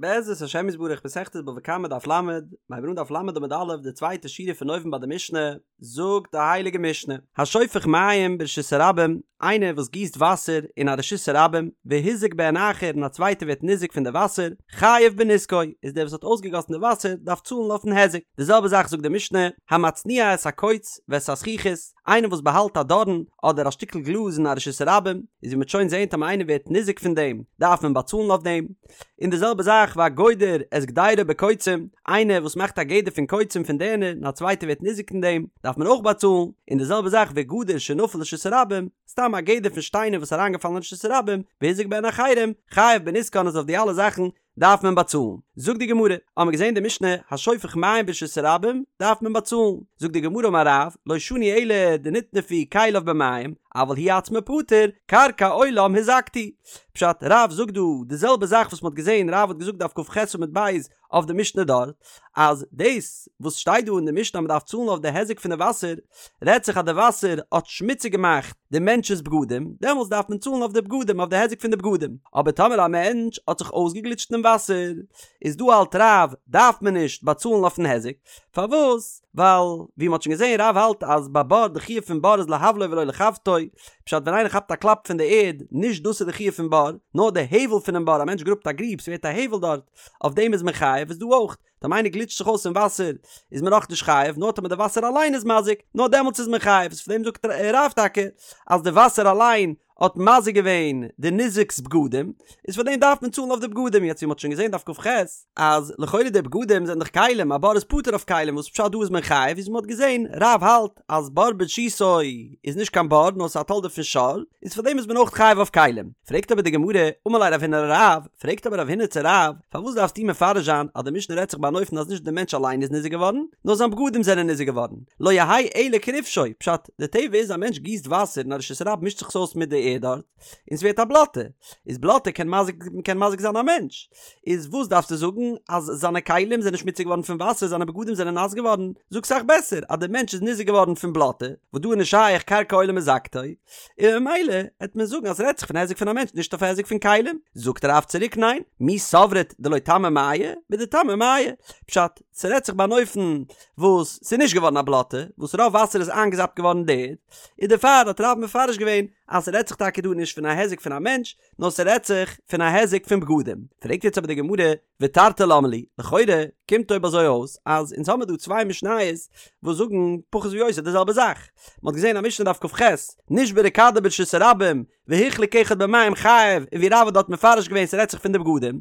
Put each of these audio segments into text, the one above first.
בעזרת השם יתברך מסכת בבא קמא דף ל, מיר הייבן אן דף ל עמוד א', די צווייטע שורה פון אויבן ביי די משנה, זאגט די הייליגע משנה, השופך מים ברשות הרבים, איינער וואס גיסט וואסער אין א רשות הרבים, והזיק בהן אחר און א צווייטער ווערט ניזוק פון די וואסער, חייב בנזקו, איז דער וואס האט אויסגעגאסן די וואסער דארף צאלן אויפן היזק. די זעלבע זאך זאגט די משנה, המצניע את הקוץ ואת הזכוכית, איינער וואס באהאלט א דארן אדער א שטיקל גלאז אין א רשות הרבים, איז ווי מ'וועט שוין זען טאמער איינער ווערט ניזוק פון דעם, דארף מען באצאלן אויף דעם. און די זעלבע זאך והגודר את גדירו בקוצים, איינער וואס מאכט א גדר פון קוצים פון דערנער און א צווייטער ווערט ניזוק פון דעם, דארף מען אויך באצאלן, און די זעלבע זאך וגדר שנפל לרשות הרבים, סתם א גדר פון שטיינער וואס איז אריינגעפאלן אין רשות הרבים, והזיק בהן אחרים, חייב בנזקן אז אויף די אלע זאכן דארף מען באצאלן. זאגט די גמרא, האמער געזען די משנה, השופך מים ברשות הרבים, דארף מען באצאלן. זאגט די גמרא אמר רב, לא שנו אלא דנטנפו כליו במים, אבל הוא עצמו פטור, קרקע עולם הזקת. פשט, רב זאגט דא די זעלבע זאך וואס מ'האט געזען, רב האט געזאגט דף כ"ח עמוד ב' אויף די משנה דארט, אז דאס וואס שטייט דא אין די משנה אז מ'דארף צאלן אויף די היזק פון די וואסער, רעדט זיך אז די וואסער האט שמוציג געמאכט די מענטש'ס בגדים, דעמאלטס דארף מען צאלן אויף די בגדים, אויף די היזק פון די בגדים. אבער טאמער א מענטש האט זיך אויסגעגליטשט אינעם וואסער, איז דא האלט רב, דארף מען נישט באצאלן אויפן היזק. פארוואס? ווייל ווי מ'האט שוין געזען רב האלט אז ביי בור די חיוב פון בור איז להבלו ולא לחבטו, פשט ווען איינער כאפט א קלאפ פון די ערד, נישט דאס איז די חיוב פון בור, נאר די הבל פונעם בור, א מענטש גראבט א גריב ס'ווערט א הבל דארט, אויף דעם איז מען חייב, איז דא אויך, טאמער איינער גליטשט זיך אויס אין וואסער איז מען נאך נישט חייב, נאר טאמער די וואסער אליין איז מזיק, נאר דעמאלטס איז מען חייב, איז פון דעם זאגט רב טאקע אז די וואסער אליין האט מזיק געווען די ניזק'ס בגדים, איז פאר דעם דארף מען צאלן אויף די בגדים, יעצט ווי מ'האט שוין געזען דף כ"ח, אז לכאורה די בגדים זענען דאך כלים, א בור איז פטור אויף כלים, וואס פשט דא איז מען חייב, ווי מ'האט געזען, רב האלט אז בור ברשותו איז נישט קיין בור נאר ס'איז א תולדה פון שור, איז פאר דעם איז מען אויך חייב אויף כלים. פרעגט אבער די גמרא, אמר ליה רב הונא לרב, פרעגט אבער רב הונא צו רב, פארוואס דארפסטו מפרש זיין אז די משנה רעדט זיך ביי אן אופן אז נישט די מענטש אליין איז ניזוק געווארן, נאר זיין בגדים זענען ניזוק געווארן, לא יהא אלא כרפשו, פשט, די טבע איז א מענטש גיסט וואסער אין א רשות הרבים מישט זיך עס אויס מיט די ערד דארט, און ס'ווערט א בלאטע, איז בלאטע קען מזיק קען מזיק זיין א מענטש, איז וואס דארפסטו זאגן אז זיינע כלים זענען שמוציג געווארן פון וואסער זיינע בגדים זענען נאס געווארן, זאג סאך בעסער אז די מענטש איז ניזוק געווארן פון בלאטע, וואס דא איז נישט שייך קרקע עולם הזקתו, און ממילא העט מען זאגן אז ס'רעדט זיך פון היזק פון א מענטש נישט אויף היזק פון כלים, זאגט רב צוריק ניין, מי סברת דלא טמי מיא, בדטמי מיא, פשט, ס'רעדט זיך ביי אן אופן וואס ס'איז נישט געווארן א בלאטע, וואס רוב וואסער איז איינגעזאפט געווארן אין די ערד, און דערפאר האט רב מפרש געווען אז ס'רעדט זיך טאקע דא נישט פון א היזק פון א מענטש, נאר ס'רעדט זיך פון א היזק פון בגדים. פרעגט יעצט אבער די גמרא, ותרתי למה לי, לכאורה קומט אויב אזוי אויס אז אונז האמיר דא צוויי משניות וואס זאגן פחות או יותר די זעלבע זאך. מ'האט געזען א משנה דף כ"ח, נשברה כדו ברשות הרבים, והוחלק אחד במים חייב, און ווי רב האט דארט מפרש געווען ס'רעדט זיך פון די בגדים.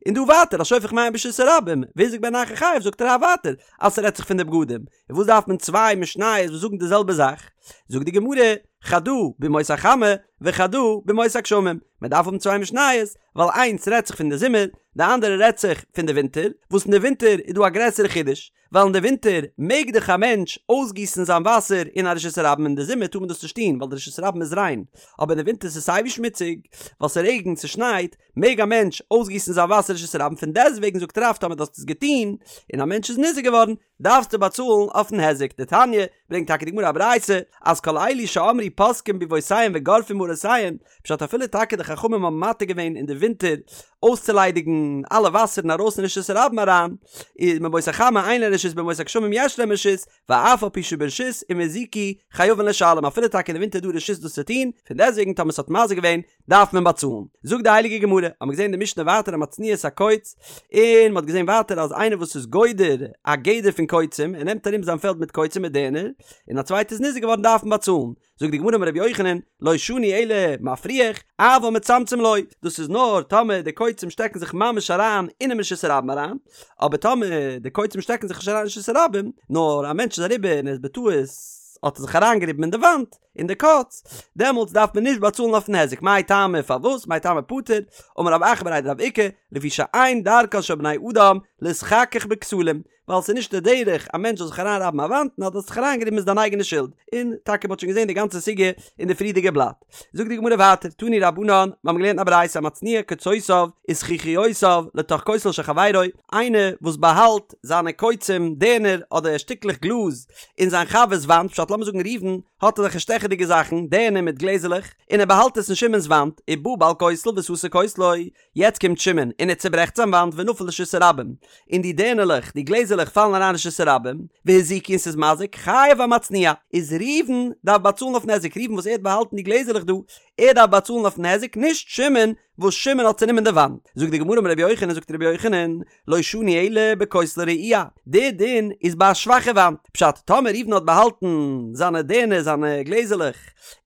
און דא ווייטער השופך מים ברשות הרבים, והזיק בהן אחר חייב זאגט רב ווייטער אז ס'רעדט זיך פון די בגדים. און וואס דארף מען צוויי משניות וואס זאגן די זעלבע זאך? זאגט די גמרא, חדא בימות החמה וחדא בימות הגשמים, מען דארף האבן צוויי משניות, ווייל איינס רעדט זיך פון די זומער, די אנדערע רעדט זיך פון די ווינטער, וואס אין די ווינטער איז דא א גרעסערע חידוש, ווייל אין די ווינטער מעג דאך א מענטש אויסגיסן זיין וואסער אין א רשות הרבים אין די זומער טאר מען דאס נישט טון ווייל די רשות הרבים איז ריין, אבער אין די ווינטער ס'איז סייווי שמוציג, ווייל ס'רעגנט ס'שנייט, מעג א מענטש אויסגיסן זיין וואסער אין רשות הרבים, פון דעסטוועגן זאגט רב טאמער דו האסט עס געטון און א מענטש איז ניזוק געווארן, דארפסטו באצאלן אויפן היזק. דתניא, ברענגט טאקע די גמרא א ברייתא, אז כל אלו שאמרו פותקין ביבותיהן וגורפין מערותיהן, פשט אפילו טאקע די חכמים האבן מתיר געווען אין די ווינטער אויסצוליידיגן אלע וואסערן ארויס אין רשות הרבים אריין, איז בימות החמה אין להם רשות בימות הגשמים יש להם רשות, ואף על פי שברשות אם הזיקו חייבין לשלם אפילו טאקע אין די ווינטער איז דא רשות דאס צו טון, פון דעסטוועגן טאמער ס'האט מזיק געווען דארף מען באצאלן. זאגט די הייליגע גמרא, האט מען געזען אין די משנה ווייטער המצניע את הקוץ, און מען האט געזען ווייטער אז איינער וואס איז גודר א גדר פון קוצים, ער נעמט ארום זיין פעלד מיט קוצים מיט דערנער, און א צווייטער איז ניזוק געווארן דארף מען באצאלן. זאגט די גמרא אמר רבי יוחנן, לא שנו אלא מפריח, אבל מצמצם לא, דאס איז נאר טאמער די קוצים שטעקן זיך ממש אריין אינעם רשות הרבים אריין, אבער טאמער די קוצים שטעקן זיך נישט אריין אין רשות הרבים, נאר א מענטש איז אריבער און ער איז בטעות האט ער זיך אריינגעריבן אין די וואנט, אין די קוץ, דעמאלטס דארף מען נישט באצאלן אויפן היזק, מאי טעמא פארוואס, מאי טעמא פטור, אמר רב אחא בריה דרב איקא, לפי שאין דרכן של בני אדם להתחכך בכתלים, ווייל ס'איז נישט די דרך א מענטש זאל זיך אריינרייבן א וואנט, און אז דו האסט זיך אריינגעריבן איז דיין אייגענע שולד, און טאקע מ'האט שוין געזען די גאנצע סוגיא אין די פריערדיגע בלאט. זאגט די גמרא ווייטער, תנו רבנן, מיר האבן געלערנט א ברייתא המצניע קוצותיו וזכוכיותיו לתוך כותל של חברו, איינער וואס באהאלט זיינע קוצים, דערנער, אדער שטיקלעך גלאז, אין זיין חבר'ס וואנט, פשט לאמיר זאגן ראובן האט אזעלכע שטעכעס. שטעכעדיגע זאכן, דערנער מיט גלעזעלעך, און ער באהאלט עס אין שמעון'ס וואנט, ובא בעל כותל וסתר כותלו, יעצט קומט שמעון און ער צוברעכט זיין וואנט ונפל לרשות הרבים, און די דערנערלעך, די גלעזערלעך פאלן אריין אין רשות הרבים, והזיקו און ס'איז מזיק, חייב המצניע, איז ראובן דארף באצאלן אויפן היזק, ראובן וואס ער האט באהאלטן די גלעזערלעך דא, ער דארף באצאלן אויפן היזק, נישט שמעון וואס שמעון האט צונומען די וואנט. זאגט די גמרא אמר רבי יוחנן, זאגט רבי יוחנן, לא שנו אלא בכותל רעוע, די דין איז ביי א שוואכע וואנט, פשט, טאמער ראובן האט באהאלטן זיינע דערנער, זיינע גלעזערלעך,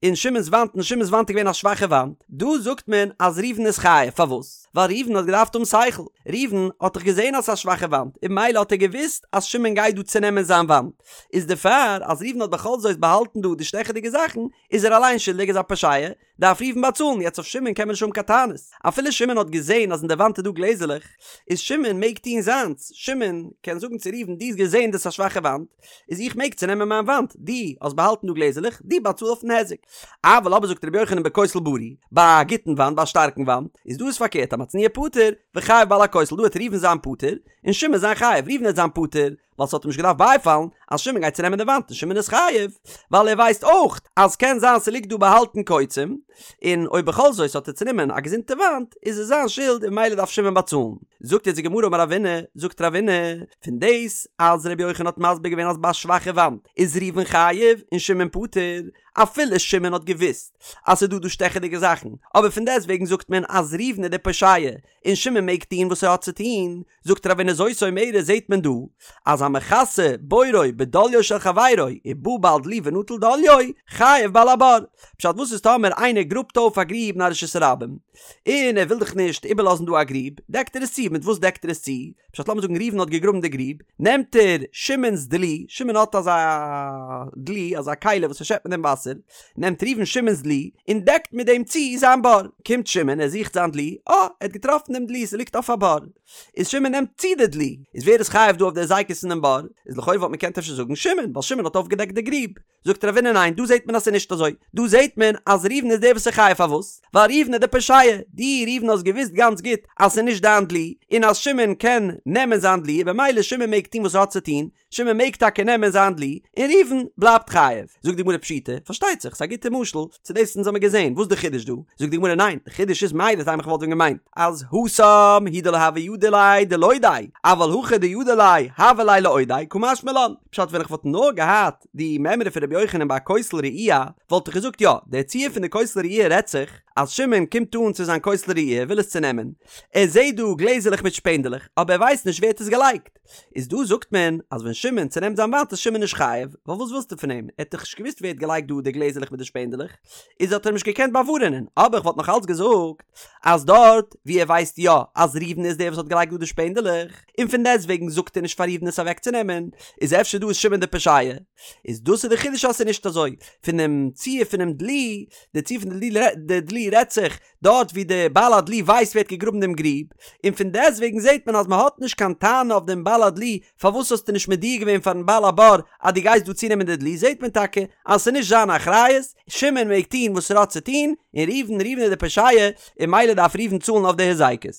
אין שמעון'ס וואנט און שמעון'ס וואנט איז געווען א שוואכע וואנט, דא זאגט מען אז ראובן איז חייב, פארוואס? ווייל ראובן האט געדארפט האבן שכל, ראובן האט דאך געזען אז ס'איז א שוואכע וואנט, און ממילא האט ער געוואוסט אז שמעון גייט דא צונעמען זיין וואנט, איז דערפאר אז ראובן האט בכל זאת באהאלטן דא די שטעכעדיגע זאכן, איז ער אליין שולדיג איז א פושע, דארף ראובן באצאלן, יעצט אויף שמעון קען מען נישט האבן קיין טענות, אפילו שמעון האט געזען אז אין די וואנט איז דא גלעזערלעך, איז שמעון מעג טון זיינס, שמעון קען זאגן צו ראובן דו האסט געזען דאס איז א שוואכע וואנט, איז איך מעג צונעמען מיין וואנט, דו האסט באהאלטן דא גלעזערלעך, דו באצאל אויפן היזק. אבל אבער זאגט רבי יוחנן בכותל בריא, ביי א גוטן וואנט, ביי א שטארקן וואנט, איז דא איז פארקערט המצניע פטור, וחייב בעל הכותל, דא וועט ראובן זיין פטור, און שמעון זיין חייב, ראובן וועט זיין פטור, ווייל ס'האט אים נישט געדארפט בייפאלן אז שמעון גייט צונעמען די וואנט און שמעון איז חייב, ווייל ער ווייסט אויך אז קען זיין ס'ליגט דא באהאלטן קוצים, און אויב בכל זאת האט ער צונומען א געזונטע וואנט איז עס זיין שולד און ממילא דארף שמעון באצאלן. זאגט יעצט די גמרא אמר רבינא, זאגט רבינא, פון דאס אז רבי יוחנן האט מסביר געווען אז ביי א שוואכע וואנט איז ראובן חייב און שמעון פטור, אפילו שמעון האט געוואוסט אז ס'איז דא דא שטעכעדיגע זאכן, אבער פון דעסטוועגן זאגט מען אז ראובן איז דער פושע און שמעון מעג טון וואס ער האט צו טון, זאגט רבינא זאת אומרת זעהט מען דא אז המכסה בורו בדליו של חברו ובא בעל דלי ונטל דליו חייב בעל הבור. פשט וואס איז טאמער איינער גראבט אויף א גריב אין א רשות הרבים און ער וויל דאך נישט איבערלאזן דא א גריב דעקט ער עס צו מיט וואס דעקט ער עס צו? פשט לאמיר זאגן ראובן האט געגראבן די גריב נעמט ער שמעון'ס דלי שמעון האט אזא דלי אזא כלי וואס ער שעפט מיט דעם וואסער נעמט ראובן שמעון'ס דלי און דעקט מיט דעם צו זיין בור. קומט שמעון, ער זוכט זיין דלי, אה, ער האט געטראפן דעם דלי, ס'ליגט אויף א בור. איז שמעון נעמט צו די דלי. איז ווער איז חייב דא אויף די הזיקות אין דעם בור? איז לכאורה וואלט מען געקענט אפשר זאגן שמעון, ווייל שמעון האט אויפגעדעקט די גריב. זאגט רבינא ניין, דא זעט מען אז ס'איז נישט אזוי. דא זעט מען אז ראובן איז דער וואס איז חייב, פארוואס? ווייל ראובן איז דער פושע. דו ראובן האסט געוואוסט גאנץ גוט אז ס'איז נישט דיין דלי, און אז שמעון קען נעמען זיין דלי, און במילא שמעון מעג טון וואס ער האט צו טון, שמעון מעג טאקע נעמען זיין דלי, און ראובן בלייבט חייב. זאגט די גמרא פשיטא, פארשטייט זיך, ס'איז א גוטע משל צו דאס אונז האמיר געזען, וואס איז די חידוש דא? זאגט די גמרא ניין, די חידוש איז מהו דתימא כ'וואלט ווען געמיינט אז התם הוא דלא הוה ידע ליה דלודעיה, אבל הכא דידע ליה הוה ליה לאודעיה, קא משמע לן. פשט ווען איך וואלט נאר געהאט די מימרא פון רבי יוחנן ביי א כותל רעוע, וואלט איך געזאגט יא, דער ציור פון די כותל רעוע רעדט זיך אז שמעון קומט אן צו זיין כותל רעוע וויל עס צונעמען, ער זעט דא גלעזערלעך מיט שפענדעלעך, אבער ער ווייסט נישט ווער האט עס געלייגט. איז דא זאגט מען אז ווען שמעון צונעמט זיין וואנט איז שמעון נישט חייב, ווייל וואס ווילסטו פון אים, ער האט דאך נישט געוואוסט ווער האט געלייגט דא די גלעזערלעך מיט די שפענדעלעך, איז האט ער אים נישט געקענט באווארענען, אבער איך וואלט נאך אלץ געזאגט אז דארט ווי ער ווייסט יא אז ראובן איז דער וואס האט געלייגט דא די שפענדעלעך, און פון דעסטוועגן זאגט ער נישט פאר ראובן עס אוועקצונעמען, איז אפשר דא איז שמעון דער פושע. איז דאס איז די חידוש אז ס'איז נישט אזוי, פונעם ציור פונעם דלי, די ציור פון די דלי רעדט זיך דארט ווי דער בעל הדלי ווייסט ווער האט געגראבן דעם גריב, און פון דעסטוועגן זעט מען אז מען האט נישט קיין טענה אויף דעם בעל הדלי, פארוואס האסטו נישט מודיע געווען פארן בעל הבור אז דו גייסט דא צונעמען די דלי, זעט מען טאקע אז ס'איז נישט זיין אחריות, שמעון מעג טון וואס ער האט צו טון, און ראובן, ראובן איז דער פושע, און ממילא דארף ראובן צאלן אויף די היזקות.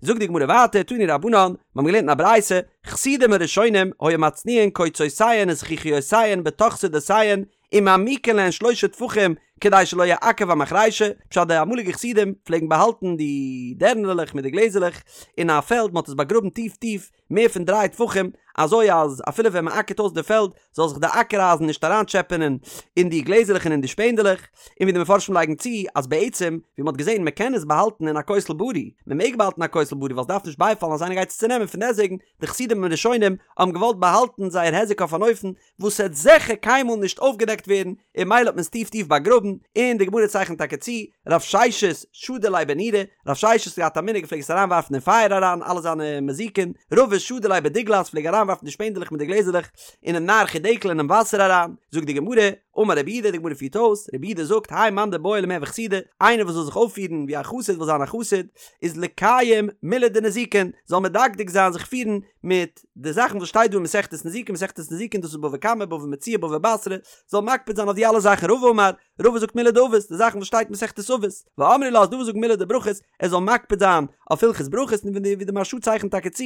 זאגט די גמרא ווייטער, תנו רבנן, מיר האבן געלערנט אין א ברייתא, חסידים הראשונים היו מצניעין קוצותיהן וזכוכיותיהן בתוך שדותיהן, ומעמיקין להן שלושה טפחים כדי שלא יעכב המחרישה, פשט די אמאליגע חסידים פלעגן באהאלטן די דערנערלעך מיט די גלעזערלעך אין א פעלד, מען האט עס באגראבן טיף טיף מער פון דריי טפחים, אזוי אז אפילו ווען מען אקערט אויס די פעלד זאל זיך די אקער אייזן נישט אריינטשעפענען אין די גלעזערלעך און אין די שפענדעלעך, און ווי די מפרשים לייגן צו אז בעצם ווי מען האט געזען מען קען עס באהאלטן אין א כותל בריא, מען מעג באהאלטן א כותל בריא ווייל עס דארף נישט בייפאלן אז איינער גייט עס צונעמען פון דעסטוועגן די חסידים הראשונים האבן געוואלט באהאלטן זייער היזק אויף אן אופן וואס העט זיכער קיינמאל נישט אויפגעדעקט ווערן, און ממילא האט מען עס טיף טיף באגראבן, און די גמרא צייכנט טאקע צו, רב ששת שדי ליה בנורא, רב ששת האט געהאט א מנהג ער פלעג עס אריינווארפן אין פייער אריין אלע זיינע מזיקין, רבא שדי ליה בדוגלת פלעג אריינווארפן די שפענדעלעך מיט די גלעזערלעך אינעם נהר חידקל אינעם וואסער אריין, זאגט די גמרא, אמר רב יהודה, די גמרא פירט אויס, רב יהודה זאגט, האי מאן דבעי למהוי חסידא, איינער וואס וויל זיך אויפפירן ווי א חסיד וויל זיין א חסיד, איז לקיים מילי דנזיקין, זאל מדקדק זיין זיך פירן מיט די זאכן וואס שטייט דא אין מסכת נזיקין, מסכת נזיקין דאס איז בבא קמא, בבא מציעא, בבא בתרא, זאל מקפיד זיין אויף די אלע זאכן, רבא אמר, רבא זאגט מילי דאבות, די זאכן וואס שטייט אין מסכת אבות, ואמרי לה ס'דא וואס זאגן מילי דברכות, ער זאל מקפיד זיין אויף הלכות ברכות, און ווי די מהרש"א צייכנט טאקע צו,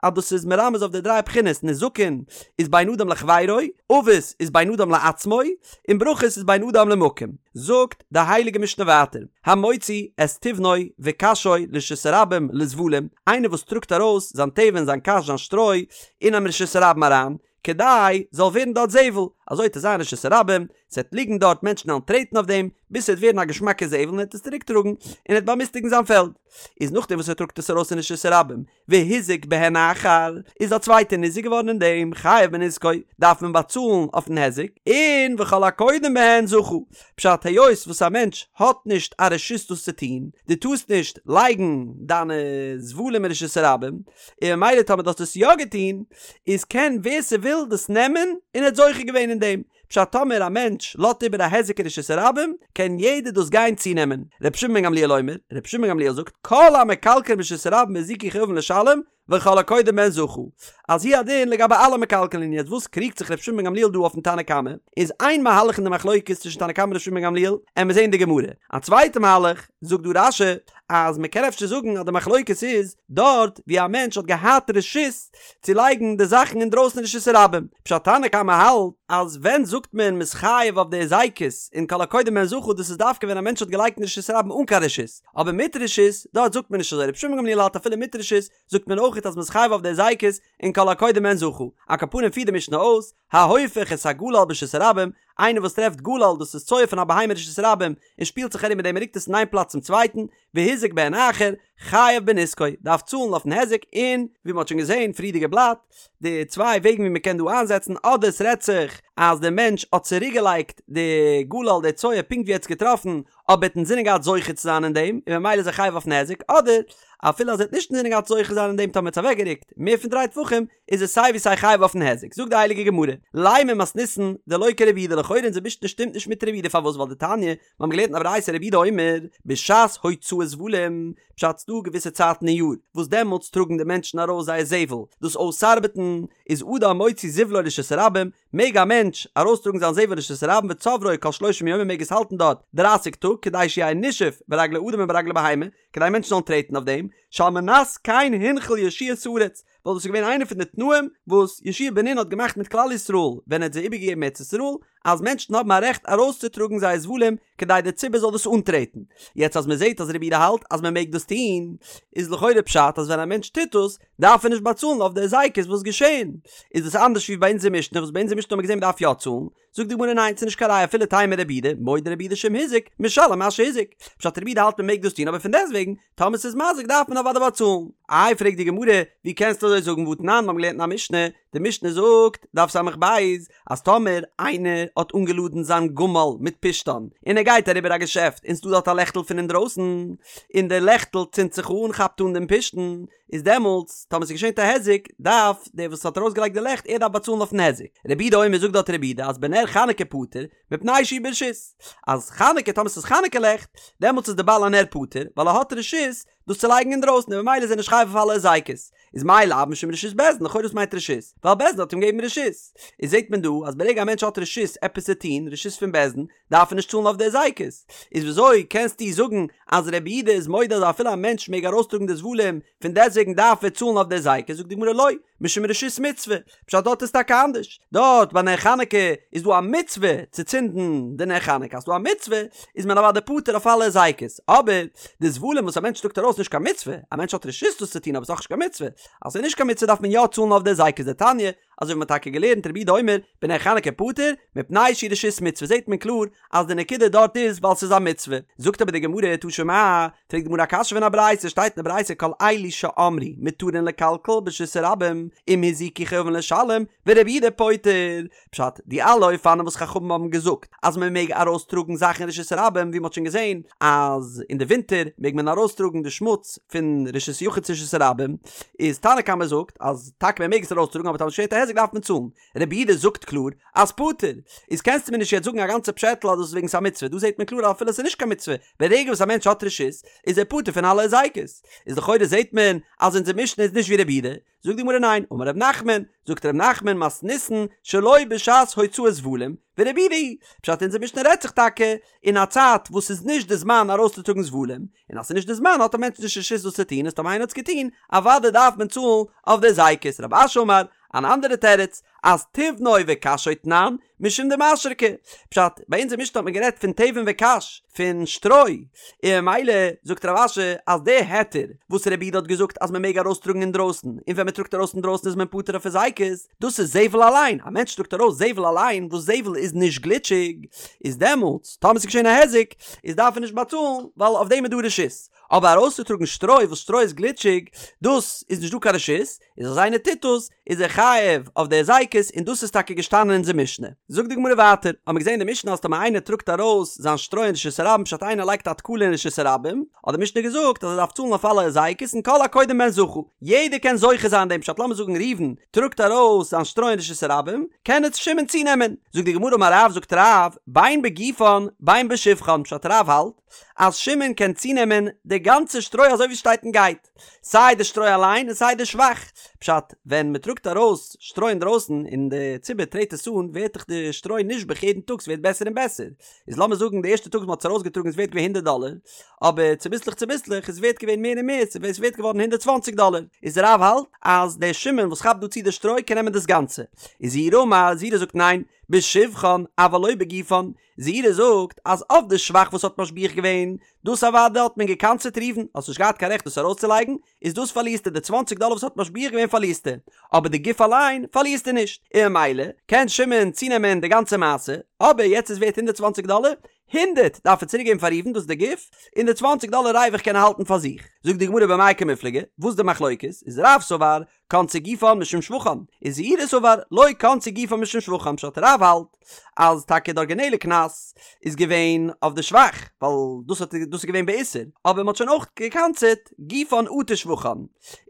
אז דאס איז מרמז אויף די דריי בחינות, נזקין איז בין אדם לחבירו, אבות איז בין אדם לעצמו, און ברכות איז בין אדם למקום. זאגט די הייליגע משנה ווייטער, המוציא את תבנו וקשו לרשות הרבים לזבלים, איינער וואס טראגט ארויס זיין תבן זיין קש זיין שטרוי אינעם רשות הרבים אריין, כדי זאל ווערן דארט זבל, אזוי וועט עס זיין רשות הרבים, ס'וועט ליגן דארט מענטשן וועלן טרעטן אויף דעם, ביז ס'וועט ווערן א געשמאקע זבל און ער וועט עס צוריק טראגן, און ער וועט באמיסטיגן זיין פעלד. איז נאכדעם וואס ער טראגט עס ארויס אין רשות הרבים, והזיק בהן אחר, איז א צווייטער ניזוק געווארן אין דעם, חייב בנזקו, דארף מען באצאלן אויפן היזק, און וכל הקודם בהן זכה. פשט, היות וואס א מענטש האט נישט א רשות דאס צו טון, דו טארסט נישט לייגן דיינע זבלים אין רשות הרבים, און ממילא טאמער דו האסט עס יא געטון, איז קען ווער ס'וויל דאס נעמען און ער האט זוכה געווען אין דעם. פשט טאמער א מענטש לאזט איבער א היזק אין רשות הרבים, קען יעדער דאס גיין צונעמען. רבי שמעון בן גמליאל אומר, רבי שמעון בן גמליאל זאגט, כל המקלקלין ברשות הרבים והזיקו חייבין לשלם, וכל הקודם בהן זכה. אז הוא הדין לגבי אלע מקלקלין יעצט וואס קריגט זיך רבי שמעון בן גמליאל דא אויפן תנא קמא, איז איין מהלך אין די מחלוקת צווישן תנא קמא און רבי שמעון בן גמליאל, עמיר זעהן די גמרא. א צווייטע מהלך, זאגט דא רש"י, אז מען קען אפשר זאגן אז די מחלוקת איז דארט ווי א מענטש האט געהאט רשות צו לייגן די זאכן אינדרויסן אין רשות הרבים, פשט תנא קמא האלט אז ווען זאגט מען מ'איז חייב אויף די היזקות און כל הקודם בהן זכה דאס איז דווקא ווען א מענטש האט געלייגט אין רשות הרבים אן קיין רשות, אבער מיט רשות דארט זאגט מען נישט אזוי, רבי שמעון בן גמליאל האלט אפילו מיט רשות זאגט מען אויכעט אז מ'איז חייב אויף די היזקות און כל הקודם בהן זכה, על כל פנים פירט די משנה אויס, ההופך את הגלל ברשות הרבים, איינער וואס טרעפט גלל דאס איז צואה פון א בהמה אין רשות הרבים און שפילט זיך ארום מיט דעם און רוקט עס פון איין פלאץ צום צווייטן, והזיק בהן אחר, חייב בנזקו, דארף צאלן אויפן היזק, און ווי מען האט שוין געזען פריערדיגע בלאט, די צוויי וועגן ווי מען קען דא איינזעצן, אדער עס רעדט זיך אז דער מענטש האט צוריקגעלייגט די גלל די צואה פונקט ווי ער האט עס געטראפן, אבער ער האט אינזינען געהאט זוכה צו זיין אין דעם, און ממילא איז ער חייב אויפן היזק, אדער אפילו אז ער האט נישט אינזינען געהאט זוכה זיין אין דעם טאמער ער האט עס אוועקגערוקט מער פון דריי טפחים, איז ער סיי ווי סיי חייב אויפן היזק. זאגט די הייליגע גמרא, לימא מתניתין דלא כרבי יהודה לכאורה אונזער משנה שטימט נישט מיט רבי יהודה פארוואס ווייל דתניא, מיר האבן געלערנט אין א ברייתא רבי יהודה אומר, בשעת הוצאת זבלים, פשט ס'דא געוויסע צייטן אין יאר וואס דעמאלטס טראגן די מענטשן ארויס זייער זבל, דאס אויסארבעטן איז אדם מוציא זבלו לרשות הרבים, מעג א מענטש ארויסטראגן זיין זבל לרשות הרבים וצוברו כל שלושים יום ער מעג עס האלטן דארט דרייסיג טאג כדי שיהא נישוף ברגלי אדם וברגלי בהמה, כדי מענטשן זאלן טרעטן אויף דעם, שעל מנת כן הנחיל יהושע את הארץ, ווייל דאס איז געווען איינע פון די תנאים וואס יהושע בן נון האט געמאכט מיט כלל ישראל ווען ער האט זיי איבערגעגעבן ארץ ישראל, אז מענטשן האבן א רעכט ארויסצוטראגן זייער זבלים כדי דער ציבור זאל דאס אנטרעטן. יעצט אז מען זעט אז רבי יהודה האלט אז מען מעג דאס טון, איז לכאורה פשט אז ווען א מענטש טוט דאס, דארף ער נישט באצאלן אויף די היזקות וואס געשען. איז דאס אנדערש ווי ביי אונזער משנה וואס ביי אונזער משנה האט מען געזען מען דארף יא צאלן, זאגט די גמרא ניין ס'איז נישט קיין ראיה אפילו תימא רבי יהודה, מודה רבי יהודה שאם הזיק, משלם מה שהזיק. פשט רבי יהודה האלט מען מעג דאס טון אבער פון דעסטוועגן, טאמער ס'איז מזיק דארף מען אוודאי באצאלן. איי פרעגט די גמרא, ווי קענסטו אזוי זאגן והתנן מיר האבן געלערנט אין א משנה, די משנה זאגט, דף ס"ב, אז טאמער איינער האט אנגעלאדן זיין גמל מיט פשתן, און ער גייט אריבער א געשעפט און ס'דא דארט א לעכטל פון אינדרויסן, און די לעכטל צינדט זיך אן כאפט אן דעם פשתן, איז דעמאלטס טאמער ס'איז געשען א היזק דארף דער וואס האט ארויסגעלייגט די לעכט ער דארף באצאלן אויפן היזק. רבי יהודה אומר זאגט דארט רבי יהודה אז בנר חנוכה פטור מפני שהוא ברשות אז חנוכה טאמער ס'איז חנוכה לעכט דעמאלטס איז די בעל הנר פטור ווייל ער האט רשות דאס צו לייגן אינדרויסן און ממילא איז ער נישט חייב אויף אלע היזקות. איז מאי לאו משום רשות בית דין לכאורה וואס מיינט רשות? ווייל בית דין האט אים געגעבן רשות. איז זעט מען דא אז ברגע א מענטש האט רשות עפעס צו טון, רשות פון בית דין, דארף ער נישט צאלן אויף די היזקות. איז וויאזוי קענסטו זאגן אז רבי יהודה איז מודה אז אפילו א מענטש מעג ארויסטראגן די זבלים, פון דעסטוועגן דארף ער צאלן אויף די היזקות, זאגט די גמרא לא, משום רשות מצוה, פשט דארט איז טאקע אנדערש, דארט ביי נר חנוכה איז דא א מצוה צו צינדן די נר חנוכה, אז ס'דא א מצוה איז מען אוודאי פטור אויף אלע היזקות, אבער די זבלים וואס א מענטש טראגט ארויס איז נישט קיין מצוה, א מענטש האט רשות דאס צו טון אבער ס'איז דאך נישט קיין מצוה, אז ס'איז נישט קיין מצוה דארף מען יא צאלן אויף די היזקות דתניא, אזוי ווי מ'האט טאקע געלערנט רבי יהודה אומר בנר חנוכה פטור מפני שהוא רשות מצוה זעט מען קלאר אז די נקודה דארט איז ווייל ס'איז א מצוה. זאגט אבער די גמרא תא שמע, פרעגט די גמרא א קשיא פון א ברייתא שטייט אין די ברייתא כל אלו שאמרו מותרין לקלקל ברשות הרבים אם הזיקו חייבין לשלם ורבי יהודה פוטר, פשט, די אלע אופנים וואס חכמים האבן געזאגט אז מען מעג ארויסטראגן זאכן אין רשות הרבים ווי מען האט שוין געזען אז אין די ווינטער מעג מען ארויסטראגן די שמוץ פון רשות יחיד צו רשות הרבים, איז תנא קמא זאגט אז טאקע מען מעג עס ארויסטראגן אבער טאמער ס'געשעט א היזק דארף מען צאלן, רבי יהודה זאגט קלאר אז פטור, איז קענסטו מיר נישט יעצט זאגן א גאנצע פשעטל אז דאס איז וועגן ס'איז א מצוה, דא זעט מען קלאר אז אפילו ס'איז נישט קיין מצוה, ברגע וואס א מענטש האט רשות איז ער פטור פון אלע היזקות, איז לכאורה זעט מען אז אונזער משנה איז נישט ווי רבי יהודה, זאגט די גמרא ניין, אמר ר' נחמן, זאגט ר' נחמן מתניתין שלא בשעת הוצאת זבלים, ורבי יהודה היא, פשט אונזער משנה רעדט זיך טאקע אין א צייט וואס ס'איז נישט די זמן ארויסצוטראגן זבלים, און אז ס'איז נישט די זמן האט א מענטש נישט רשות דאס צו טון, איז טאמער איינער האט עס געטון, אוודאי דארף מען צאלן אויף די היזקות, רב אשי אמר, אן אנדערע תירוץ, אז תבנו וקשו תנן, משום דמשרקי. פשט, ביי אונזער משנה האט מען גערעדט פון תבן וקש, פון שטרוי, און ממילא זאגט רב אשי אז די היתר וואס רבי יהודה האט געזאגט אז מען מעג ארויסטראגן אינדרויסן, און ווען מען טראגט ארויס אינדרויסן איז מען פטור אויף היזקות, דאס איז זבל אליין, א מענטש טראגט ארויס זבל אליין, וואס זבל איז נישט גליטשיג, איז דעמאלטס טאמער ס'איז געשען א היזק, איז דארף ער נישט באצאלן, ווייל אויף דעם איז דא רשות. אבער ארויסצוטראגן שטרוי וואס שטרוי איז גליטשיג, דאס איז נישט דא קיין רשות, איז אז איינער טוט דאס, איז ער חייב אויף די היזקות, און דאס איז טאקע געשטאנען אין אונזער משנה. זאגט די גמרא ווייטער, האמיר געזען אין די משנה אז טאמער איינער טראגט ארויס זיין שטרוי אין רשות הרבים פשט איינער לייגט א תקלה אין רשות הרבים, האט די משנה געזאגט אז ער דארף צאלן אויף אלע היזקות און כל הקודם בהן זכה, יעדער קען זוכה זיין דעם פשט לאמיר זאגן ראובן טראגט ארויס זיין שטרוי אין רשות הרבים, קען עס שמעון צונעמען. זאגט די גמרא אמר רב זאגט רב, בין בגופן בין בשבחן פשט רב האלט אז שמעון קען צונעמען די גאנצע שטרוי אזוי ווי עס שטייט און גייט, סיי די שטרוי אליין און סיי די שבח, פשט, ווען מען טראגט ארויס שטרוי אינדרויסן און די ציבור טרעט עס אן ווערט דאך די שטרוי נשבח יעדן טאג ס'ווערט בעסער און בעסער, איז לאמיר זאגן די ערשטע טאג וואס מען האט עס ארויסגעטראגן איז ווערט געווען הונדערט דאלער, אבער צוביסלעך צוביסלעך איז ווערט געווען מער און מער ס'איז ווערט געווארן הונדערט צוואנציג דאלער, איז רב האלט אז דער שמעון וואס כאפט דא צו די שטרוי קען נעמען דאס גאנצע, איז זעירי אמר, זעירי זאגט ניין, בשבחן אבל לא בגופן, זעירי זאגט אז אויף די שבח וואס האט משביח געווען, דאס אוודאי האט מען געקנס'עט ראובן, האסט נישט געהאט קיין רעכט דאס ארויסצולייגן, איז דאס פארלירסטו די צוואנציג דאלער וואס האט משביח געווען פארלירסטו, אבער די גוף אליין פארלירסטו נישט, און ממילא קען שמעון צונעמען די גאנצע מעשה, אבער יעצט איז ווערט הונדערט צוואנציג דאלער, הונדערט דארף ער צוריק געבן פאר ראובן דאס איז די גוף, און די צוואנציג דאלער ריווח קען ער האלטן פאר זיך. זאגט די גמרא במאי קמיפלגי, וואס איז די מחלוקת, איז רב סבר קנסו גופן משום שבחן, איז זעירי סבר לא קנסו גופן משום שבחן פשט רב האלט אז טאקע די ארגינעלע קנס איז געווען אויף די שבח ווייל דאס האט דאס איז געווען באיסור אבער מען האט שוין אויך געקנס'עט גופן אטו שבחן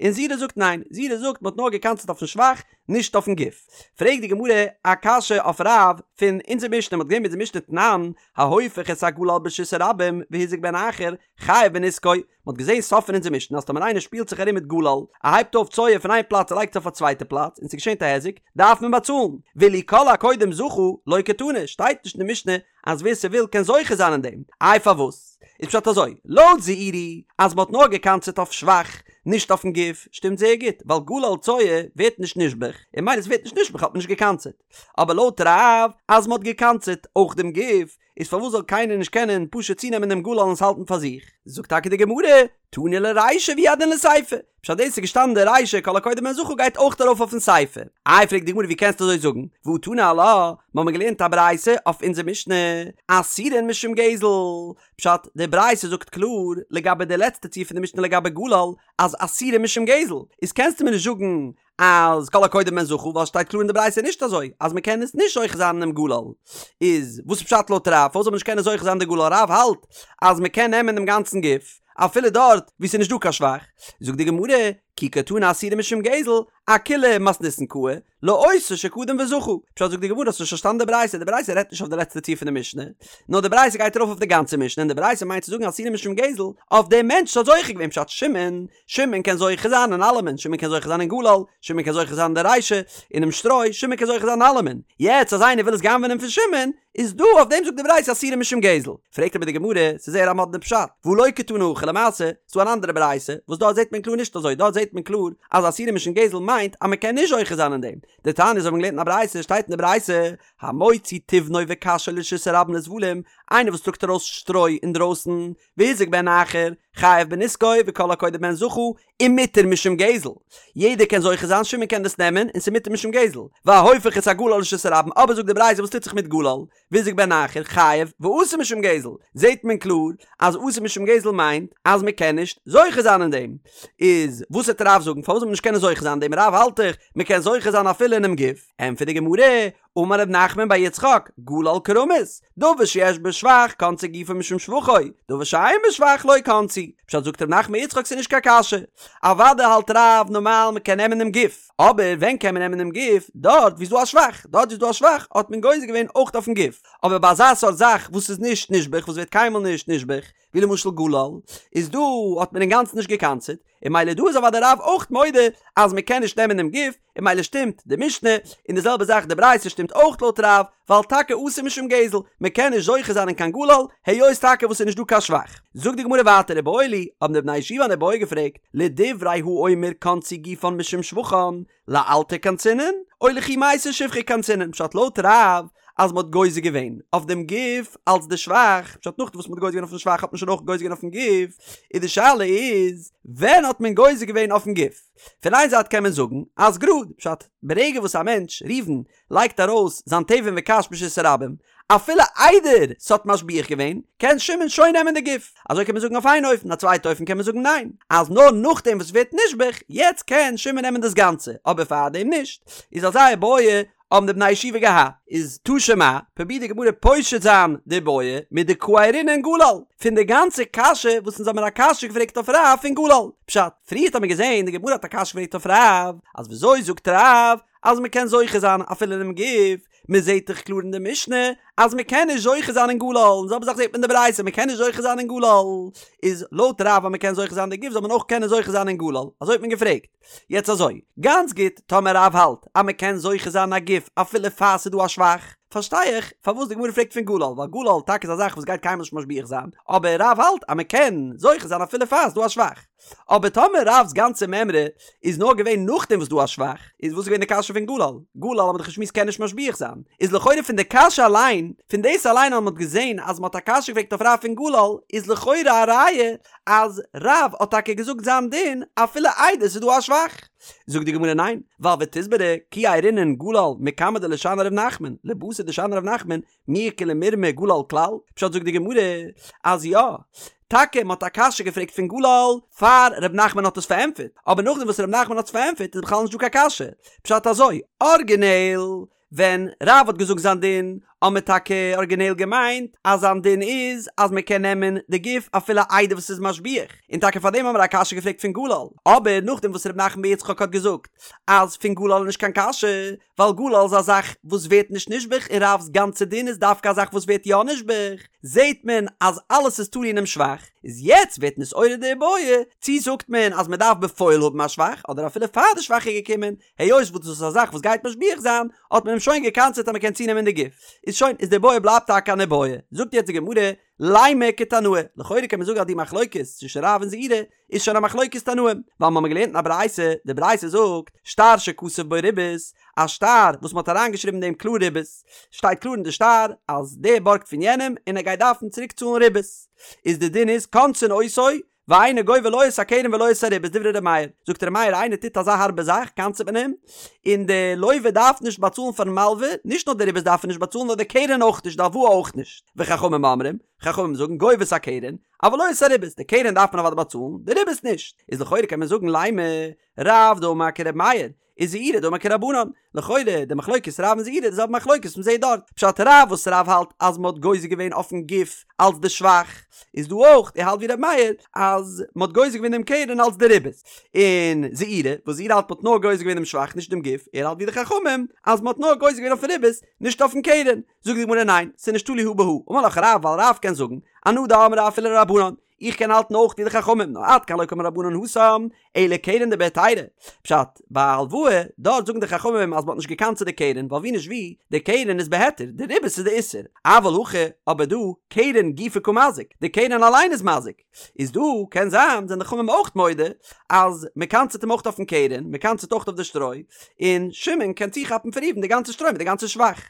און זעירי זאגט ניין זעירי זאגט מען האט נאר געקנס'עט אויפן שבח נישט אויפן גוף פרעגט די גמרא א קשיא אויף רב פון אונזער משנה מען האט געזען אין אונזער משנה תנן ההופך את הגלל ברשות הרבים והזיק בהן אחר חייב בנזקו מען האט געזען סוף פון אונזער משנה אז טאמער איינער שפילט זיך ארום מיט גלל, ער הייבט אויף צואה פון איין פלאץ און לייגט עס אויף א צווייטע פלאץ און ס'געשענט א היזק, דארף מען באצאלן. ואילו כל הקודם זכה, לא קתני, שטייט נישט אין די משנה אז ווער ס'וויל קען זוכה זיין אין דעם. איי פארוואס? איז פשט אזוי, לויט זעירי אז מען האט נאר געקנס'עט אויף שבח, נישט אויפן גוף, שטימט זייער גוט, ווייל גלל צואה ווערט נישט נשבח, און ממילא ס'ווערט נישט נשבח האט מען נישט געקנס'עט. אבער לויט רב אז מען האט געקנס'עט אויך דעם גוף, איז פארוואס זאל קיינער נישט קענען פשוט צונעמען דעם גלל און עס האלטן פאר זיך? זאגט טאקע די גמרא, תנא לרישא והוא הדין לסיפא, פשט דאס איז געשטאנען די רישא כל הקודם בהן זכה גייט אויך ארויף אויפן סיפא. איי פרעגט די גמרא ווי קענסטו אזוי זאגן, והא תנא עלה, מיר האבן געלערנט א ברייתא אויף אונזער משנה, אסורין משום גזל, פשט די ברייתא זאגט קלאר לגבי די לעצטע ציור פון די משנה לגבי גלל אז אסורין משום גזל, איז קענסטו מיר נישט זאגן אז כל הקודם בהן זכה ווייל שטייט קלאר אין די ברייתא נישט אזוי אז מען קען עס נישט זוכה זיין אינעם גלל איז וואס איז פשט לויט רב פארוואס זאל מען נישט קענען זוכה זיין די גלל רב האלט אז מען קען נעמען דעם גאנצן גוף אפילו דארט וואו ס'איז נישט דא קיין שבח זאגט די גמרא כי קתני אסורין משום גזל אכולה מתניתין קאי לאותו שקדם וזכה פשט זאגט די גמרא האסט נישט פארשטאנען די ברייתא די ברייתא רעדט נישט אויף די לעצטע ציור פון די משנה נאר די ברייתא גייט ארויף אויף די גאנצע משנה און די ברייתא מיינט צו זאגן אסורין משום גזל אויף דעם מענטש וואס האט זוכה געווען פשט שמעון שמעון קען זוכה זיין אין אלעמען, שמעון קען זוכה זיין אין גלל, שמעון קען זוכה זיין אין די רישא, אינעם שטרוי, שמעון קען זוכה זיין אין אלעמען. יעצט אז איינער וויל עס גנב'נען פון שמעון, איז דא אויף דעם זאגט די ברייתא אסורין משום גזל. פרעגט אבער די גמרא, ס'איז זייער א מאדנע פשט, והא לא קתני הכי למעשה, ס'דא אן אנדערע ברייתא, וואס דארט זעט מען קלאר נישט אזוי, דארט זעט מען קלאר אז אסורין משום גזל מיינט אז מ'קען נישט זוכה זיין אין דעם. דתניא אזוי האט מען געלערנט אין א ברייתא, שטייט אין די ברייתא, המוציא תבנו וקשו לרשות הרבים לזבלים, איינער וואס טראגט ארויס שטרוי אינדרויסן, והזיק בהן אחר, חייב בנזקו וכל הקודם בהן זכה, ומותר משום גזל. יעדער קען זוכה זיין, שמעון קען דאס נעמען, און ס'מותר משום גזל. וההופך את הגלל לרשות הרבים, אבער זאגט די ברייתא וואס טוט זיך מיט גלל, והזיק בהן אחר, חייב, ואסור משום גזל. זעט מען קלאר אז אסור משום גזל מיינט אז מ'קען נישט זוכה זיין אין דעם. איז וואס וועט רב זאגן פארוואס זאל מען נישט קענען זוכה זיין אין דעם? רב האלט דאך מ'קען זוכה זיין אפילו אינעם גוף. ענטפערט די גמרא, אמר ר' נחמן בר יצחק, גלל כרמוס, דבר שיש בו שבח קנסו גופו משום שבחו, דבר שאין בו שבח לא קנסו. פשט זאגט ר' נחמן בר יצחק ס'איז נישט קיין קשיא. אוודאי האלט רב נארמאל מ'קען נעמען דעם גוף, אבער ווען קען מען נעמען דעם גוף? דארט וואו ס'איז דא א שבח, דארט וואו ס'איז דא א שבח האט מען גוזר געווען אויך אויפן גוף, אבער ביי אזא סארט זאך וואס איז נישט נשבח וואס ווערט קיינמאל נישט נשבח, ווי למשל גלל, איז דא האט מען אינגאנצן נישט גע'קנס'עט, און ממילא דא איז אוודאי רב אויך מודה אז מען קען נישט נעמען דעם גוף, און ממילא שטימט די משנה, און די זעלבע זאך די ברייתא שטימט אויך לויט רב, ווייל טאקע אסור משום גזל, מען קען נישט זוכה זיין אין קיין גלל, היות טאקע וואס ס'איז נישט דא קיין שבח. זאגט די גמרא ווייטער איבעיא להו, האבן די בני ישיבה אן איבעיא געפרעגט, לדברי האומר קנסו גופן משום שבחן, לאלתר קנסינן, או לכי מייתי שבחא קנסינן, פשט לויט רב אז מ'האט גוזר געווען אויף דעם גוף אלס די שבח, פשט נאכדעם וואס מ'האט גוזר געווען אויפן שבח האט מען שוין אויך גוזר געווען אויפן גוף, איז די שאלה איז ווען האט מען גוזר געווען אויפן גוף? פון איין זייט קען מען זאגן אז גראד, פשט ברגע וואס א מענטש, ראובן, לייגט ארויס זיין תבן וקש ברשות הרבים, אפילו איידער ס'האט משביח געווען, קען שמעון שוין נעמען די גוף. אזוי קען מען זאגן אויף איין אופן, א צווייטע אופן קען מען זאגן ניין, אז נאר נאכדעם וואס ס'ווערט נשבח, יעצט קען שמעון נעמען דאס גאנצע, אבער פארדעם נישט. איז אזא איבעיא האבן די בני ישיבה געהאט. איז תא שמע, פרובירט די גמרא פושט זיין די איבעיא מדקאיירינן גלל, פון די גאנצע קשיא וואס אונז האבן מיר א קשיא געפרעגט אויף רב פון גלל. פשט, פריערט האט מען געזען די גמרא האט א קשיא געפרעגט אויף רב, אז וויאזוי זאגט רב אז מ'קען זוכה זיין אפילו אינעם גוף, מען זעט דאך קלאר אין די משנה אז מען קען נישט זוכה זיין אין גלל, און זעלבע זאך זעט מען אין די ברייתא מען קען נישט זוכה זיין אין גלל, איז לויט רב אז מען קען זוכה זיין אין די גוף זאל מען אויך קענען זוכה זיין אין גלל, אזוי האט מען געפרעגט. יעצט אזוי, גאנץ גוט, טאמער רב האלט אז מען קען זוכה זיין אין א גוף אפילו פאר ס'איז דא א שבח, פארשטיי איך פארוואס די גמרא פרעגט פון גלל, ווייל גלל טאקע איז א זאך וואס גייט קיינמאל נישט משביח זיין, אבער רב האלט אז מען קען זוכה זיין אפילו פאר ס'איז דא א שבח. אבער טאמער רב'ס גאנצע מימרא איז נאר געווען נאכדעם וואס דא א שבח, איז וואס איז געווען די קשיא פון גלל? גלל האט מען דאך געשמועסט קען נישט משביח זיין, איז לכאורה פון די קשיא אליין, פון דאס אליין אז מען האט געזען אז מען האט א קשיא געפרעגט אויף רב פון גלל, איז לכאורה א ראיה אז רב האט טאקע געזאגט זיין דין אפילו איידער ס'איז דא א שבח. זאגט די גמרא ניין, ווייל ותסברא כי איירינן גלל מקמי דלשני ר' נחמן, לבתר דשני ר' נחמן, מי איכא למירמי גלל כלל? פשט זאגט די גמרא אז יא, טאקע מען האט א קשיא געפרעגט פון גלל פאר ר' נחמן האט עס פארענטפערט, אבער נאכדעם וואס ר' נחמן האט עס פארענטפערט איז בכלל נישט דא קיין קשיא, פשט אזוי, ארגינעל ווען רב האט געזאגט זיין דין האט מען טאקע ארגינעל געמיינט אז זיין דין איז אז מען קען נעמען די גוף אפילו איידער וואס ס'איז משביח, און טאקע פארדעם האבן מיר א קשיא געפרעגט פון גלל, אבער נאכדעם וואס ר' נחמן בר יצחק האט געזאגט אז פון גלל איז נישט קיין קשיא, ווייל גלל איז א זאך וואס ווערט נישט נשבח און רב'ס גאנצע דין איז דווקא א זאך וואס ווערט יא נשבח, זעהט מען אז אלעס איז תלוי אינעם שבח, איז יעצט ווערט נתעורר די איבעיא, צי זאגט מען אז מען דארף בפועל האבן א שבח אדער אפילו פאר די שבח איז געקומען, היות וואס דאס איז א זאך וואס גייט משביח זיין, האט מען אים שוין גע'קנס'עט אז מען קען צונעמען די גוף. איז שוין, איז די איבעיא בלייבט טאקע אן איבעיא. זאגט יעצט די גמרא, לימא כתנאי, לכאורה קען מען זאגן אז די מחלוקת צווישן רב און זעירא איז שוין א מחלוקת תנאים, ווייל מ'האמיר געלערנט אין א ברייתא, די ברייתא זאגט, שטר שכתוב בו ריבית, א שטר וואס מ'האט אריינגעשריבן אין דעם קלאר ריבית, שטייט קלאר אין די שטר אז דער בארגט פון יענעם און ער גייט דארפן צוריק צאלן ריבית, איז די דין איז קונסין אותו ואינו גובה לא את הקרן ולא את הריבית דברי ר' מאיר, זאגט ר' מאיר איינער טוט אזא הארבע זאך קנס'ט מען אים, און די לווה דארף נישט באצאלן פארן מלווה, נישט נאר די ריבית דארף ער נישט באצאלן נאר די קרן אויך נישט די הלוואה אויך נישט, וחכמים אומרים, חכמים זאגן גובה את הקרן, אבל לא את הריבית, די קרן דארף מען אוודאי באצאלן, די ריבית נישט. איז לכאורה קען מען זאגן לימא רב דאמר כר' מאיר, וזעירא דאמר כרבנן, לכאורה די מחלוקת רב און זעירא די זעלבע מחלוקת וואס מ'זעט דארט, פשט רב וואס רב האלט אז מ'האט גוזר געווען אויפן גוף אלץ די שבח, איז דא אויך, ער האלט ווי ר' מאיר אז מ'האט גוזר געווען דעם קרן אלץ די ריבית, און זעירא וואס זעירא האלט מ'האט נאר גוזר געווען דעם שבח נישט דעם גוף, ער האלט ווי די חכמים אז מ'האט נאר גוזר געווען אויפן ריבית נישט אויפן קרן. זאגט די גמרא ניין, ס'איז נישט תלוי הא בהא, אמר לך רב ווייל רב קען זאגן, אנא דאמרי אפילו לרבנן, איך קען האלטן אויך ווי די חכמים, נאר עד כאן לא קאמרי רבנן התם, אלא קרן דבהיתרא, פשט, ביי א הלוואה, דארט זאגן די חכמים אז מ'האט נישט געקנס'עט די קרן, ווייל ווי נישט ווי, די קרן איז בהיתר, די ריבית איז די איסור, אבל הכא, אבער דא, קרן גופא קא מזיק, די קרן אליין איז מזיק. איז דא קען זיין זענען די חכמים אויך מודה אז מען קנס'עט אים אויך אויפן קרן, מען קנס'עט אויך אויף די שטרוי, און שמעון קען צוכאפן פון ראובן די גאנצע שטרוי מיט די גאנצע שבח.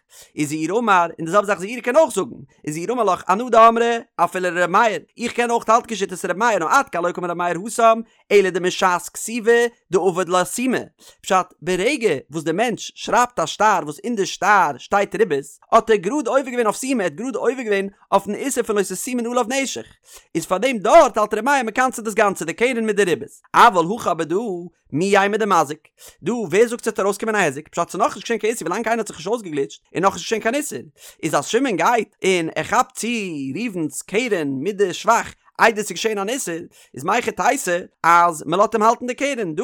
וזעירא אמר, און די זעלבע זאך זעירא קען אויך זאגן, וזעירא אמר לך אנא דאמרי אפילו לר' מאיר, איך קען אויך האלטן כשיטת ר' מאיר נאר עד כאן לא קאמר ר' מאיר התם, אלא דמשעת כתיבה דעבד לה סומא, פשט, ברגע וואס די מענטש שרייבט א שטר וואס אין די שטר שטייט ריבית, האט ער גראד עובר געווען אויף סומא, ער האט גראד עובר געווען אויפן איסור פון לא תשימון עליו נשך, איז פאר דעם דארט האלט ר' מאיר מ'קנס'עט דאס גאנצע די קרן מיט די ריבית, אבל הכא אבער דא מי יימר דמזיק, דא ווער זאגט ס'וועט ארויסקומען א היזק, פשט ס'איז נאכנישט געשען קיין איסור ווילאנג קיינער האט זיך נישט אויסגעגליטשט איז נאכנישט געשען קיין איסור, איז אז שמעון גייט און ער כאפט צו ראובן'ס קרן מיט די שבח איידער ס'איז געשען אן איסור, איז מהיכי תיתי אז מ'לאזט אים האלטן די קרן דא?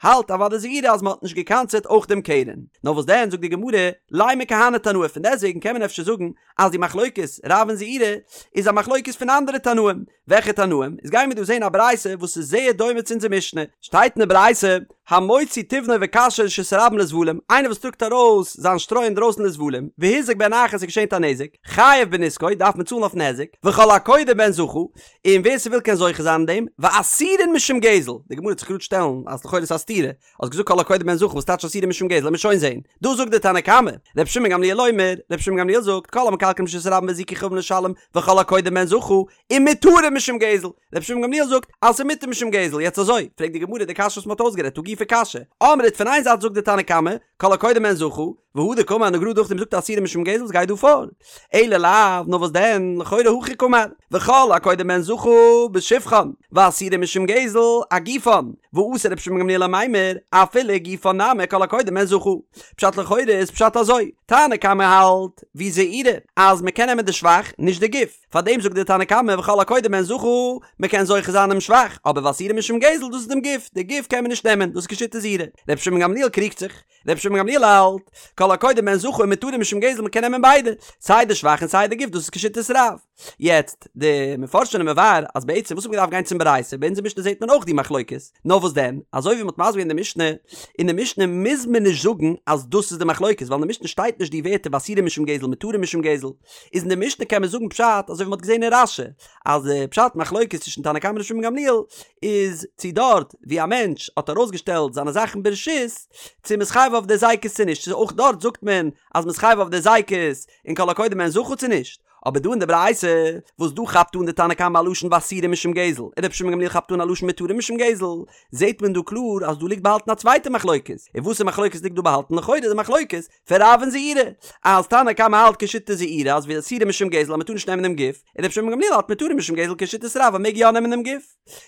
האלט אוודאי זעירא אז מען האט נישט געקנס'עט אויך דעם קרן. נאר וואס דען זאגט די גמרא, לימא כהני תנאי פון דעסטוועגן קען מען אפשר זאגן אז די מחלוקת רב און זעירא איז א מחלוקת פון אנדערע תנאים, וועלכע תנאים? איז גייען מיר דא זעהן א ברייתא וואס איז זייער דומה צו אונזער משנה, שטייט אין די ברייתא, המוציא תבנו וקשו לרשות הרבים לזבלים, איינער וואס טראגט ארויס זיין שטרוי אינדרויסן לזבלים, והוזק בהן אחר ס'איז געשען א נזק, חייב בנזקו, דארף מען צאלן אויפן היזק, וכל הקודה בהן זכה, און ווער ס'וויל קען זוכה זיין אין דעם, ואסורין משום גזל, די גמרא וועט זיך גראד שטעלן אז לכאורה איז א סתירה, האסט געזאגט כל הקודה בהן זכה וואס טייטש אסורין משום גזל לאמיר שוין זעהן, דא זאגט די תנא קמא, ר' שמעון גמליאל אומר, ר' שמעון גמליאל זאגט, כל המקלקלין ברשות הרבים והזיקו חייבין לשלם, וכל הקודה בהן זכה, ומותרין משום גזל, ר' שמעון גמליאל זאגט אז ס'איז מותר משום גזל, יעצט אזוי, פרעגט די גמרא די קשיא וואס מ'האט אויסגערעדט הא גופא קשיא, אמרת פון איין זייט זאגט די תנא קמא, כל הקודה בהן זכה, והדר קאמר און גראד נאכדעם זאגט אסורין משום גזל וואס גייט דא פאר? אלא לאו, נאר וואס דען, לכאורה הכי קאמר, וכל הקודה בהן זכה בשבחן, ואסורין משום גזל אגופן, ואתא רבי שמעון גמליאל למימר, אפילו גופן נמי כל הקודה בהן זכה. פשט לכאורה איז פשט אזוי, תנא קמא האלט, ווי זעירא, אז מ'קען נעמען די שבח, נישט די גוף. פארדעם זאגט דער תנא קמא וכל הקודה בהן זכה, מען קען זוכה זיין דעם שבח, אבער ואסורין משום גזל דאס איז דעם גוף, די גוף קען מען נישט נעמען, דאס איז כשיטת זעירא. רבי שמעון גמליאל קריגט זיך, רבי שמעון גמליאל האלט, כל הקודה בהן זכה ומותרין משום גזל מען קען נעמען ביידע, סיי די שבח און סיי די גוף דאס איז כשיטת רב. יעצט, די מפרשים זענען מבאר אז בעצם וואס האט מען געדארפט גיין צום ברייתא, ביי אונזער משנה זעט מען אויך די מחלוקת, נאר וואס דען, אזוי ווי מען האט מסביר געווען די משנה, אין די משנה מוז מען נישט זאגן אז דאס איז די מחלוקת, ווייל אין די משנה שטייט נישט די ווערטער ואסורין משום גזל מותרין משום גזל, איז אין די משנה קען מען זאגן פשט אזוי ווי מ'האט געזען אין רש"י אז די פשט מחלוקת צווישן תנא קמא און ר' שמעון גמליאל איז צו דארט ווי א מענטש האט ארויסגעשטעלט זיינע זאכן ברשות צו מ'איז חייב אויף די היזקות צו נישט צו אויך דארט זאגט מען אז מ'איז חייב אויף די היזקות און כל הקודה בהן זכה צו נישט אבער דא אין די ברייתא וואס דא כאפט אן די תנא קמא א לשון ואסורין משום גזל און ר' שמעון גמליאל כאפט אן א לשון מותרין משום גזל זעט מען דא קלאר אז דא ליגט באהאלטן א צווייטע מחלוקת און וואסער מחלוקת ליגט דא באהאלטן לכאורה די מחלוקת פון רב און זעירא, אז תנא קמא האלט כשיטת זעירא אז ואסורין משום גזל אז מ'טאר נישט נעמען דעם גוף, און רבי שמעון גמליאל האלט מותרין משום גזל כשיטת רב אז מ'מעג יא נעמען דעם גוף.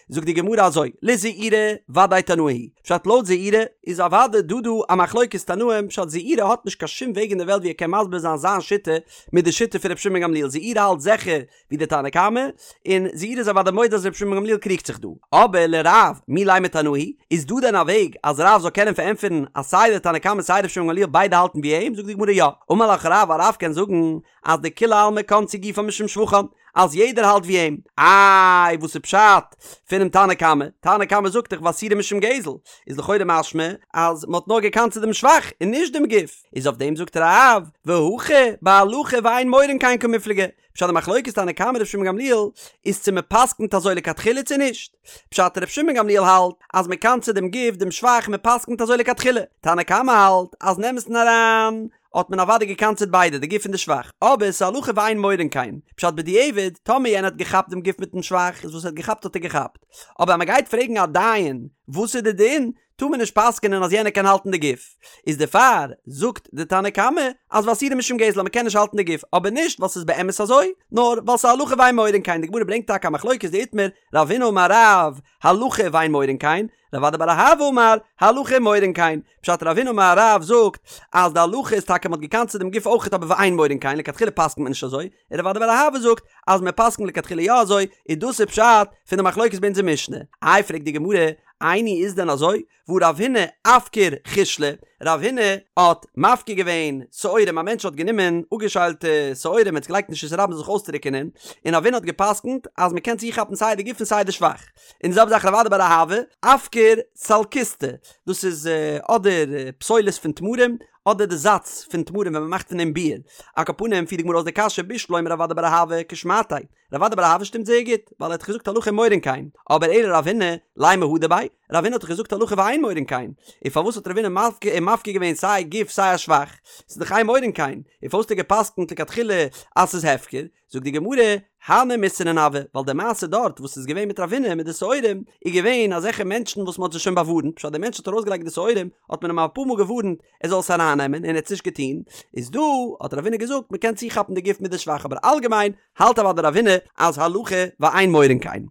זאגט די גמרא אזוי, לזעירא ודאי תנאי היא, פשט לויט זעירא איז אוודאי דא דא א מחלוקת תנאים, פשט זעירא האט נישט קיין שום וועג אין די וועלט ווי ער קען מסביר זיין זיין שיטה מיט די שיטה פון רבי שמעון גמליאל, זעירא האלט זיכער ווי די תנא קמא, און זעירא איז אוודאי מודה אז רבי שמעון בן גמליאל קריגט זיך דא. אבער לרב, מי לימא תנאי היא, איז דא דען א וועג אז רב זאל קענען פארענטפערן אז סיי די תנא קמא סיי רבי שמעון בן גמליאל ביידע האלטן ווי אים? זאגט די גמרא יא. אמר לך רב, א רב קען זאגן אז דכולי עלמא קנסו גופן משום שבחן, אז יעדער האלט ווי אים. איי וואס איז פשט פונעם תנא קמא? תנא קמא זאגט דאך ואסורין משום גזל, איז לכאורה משמע אז מען האט נאר געקנס'עט דעם שבח און נישט דעם גוף, איז אויף דעם זאגט רב, והכא בהלכה ואין מורין כן קמיפלגי, פשט די מחלוקת תנא קמא ר' שמעון גמליאל איז צו מען פסקנט אזוי לכתחילה צו נישט. פשט ר' שמעון גמליאל האלט אז מען קנס'עט דעם גוף דעם שבח מען פסקנט אזוי לכתחילה. תנא קמא האלט אז אין אמת'ן אריין האט מען אוודאי געקנס'עט ביידע די גוף און די שבח אבער ס'איז הלכה ואין מורין כן. פשט בדיעבד טאמער יענער האט געכאפט דעם גוף מיטן שבח איז וואס ער האט געכאפט האט ער געכאפט. אבער אז מען גייט פרעגן א דיין וואס איז די דין טאר מען נישט פסק'ענען אז יענער קען האלטן די גוף, איז דערפאר זאגט די תנא קמא אז ואסורין משום גזל אז מען קען נישט האלטן די גוף, אבער נישט ווייל ס'איז באמת אזוי, נאר ווייל ס'איז הלכה ואין מורין כן, די גמרא ברענגט טאקע א מחלוקת דאיתמר, רב הונא אמר רב, הלכה ואין מורין כן, רב אדא בר אהבה אמר, הלכה ומורין כן, פשט רב הונא אמר רב זאגט אז די הלכה איז טאקע מען האט געקנס'עט דעם גוף אויכעט אבער ואין מורין כן, לכתחילה פסק'נט מען נישט אזוי, און רב אדא בר אהבה זאגט אז מען פסק'נט לכתחילה יא אזוי, און דאס איז פשט פון די מחלוקת ביי אונזער משנה. איי פרעגט די גמרא, איני איז דען אזוי? והא רב הונא אפקר חישלא, רב הונא האט מפקיר געווען שעורים, א מענטש האט גענומען אפגעשיילטע שעורים און עס געלייגט אין רשות הרבים זיך אויסטרוקענען, און רב הונא האט געפסקנט אז מען קען צוכאפן סיי די גוף און סיי די שבח. און די זעלבע זאך רב אדא בר אהבה, אפקר סלקיסטי, דאס איז אדער פסולת פון תמרים, אדער די זאץ פון תמרים ווען מען מאכט פון דעם ביר. על כל פנים פירט די גמרא אויס די קשיא בשלמא רב אדא בר אהבה כשמעתיה, רב אדא בר אהבה שטימט זייער גוט, ווייל ער האט דאך געזאגט הלכה ומורין כן, אבער אלא רב הונא, לימא הדר ביה, רב הונא האט דאך געזאגט הלכה ואין מורין כן, און פארוואס האט רב הונא מפקיר געווען סיי גוף סיי א שבח, ס'איז דאך אין מורין כן, און פארוואס האט ער גע'פסק'נט לכתחילה אז ס'איז הפקר, זאגט די גמרא, הני מסרני הוו, ווייל די מעשה דארט וואס איז געווען מיט רב הונא מיט די שעורים, איז געווען אזעלכע מענטשן וואס מ'האט זיי שוין באווארנט, פשט דער מענטש האט ארויסגעלייגט די שעורים, האט מען אים אפאר מאל געווארנט ער זאל עס ארייננעמען און ער האט עס נישט געטון, איז דא האט רב הונא געזאגט מ'קען צוכאפן די גוף מיט די שבח אבער אלגעמיין האלט אוודאי רב הונא אז הלכה ואין מורין כן.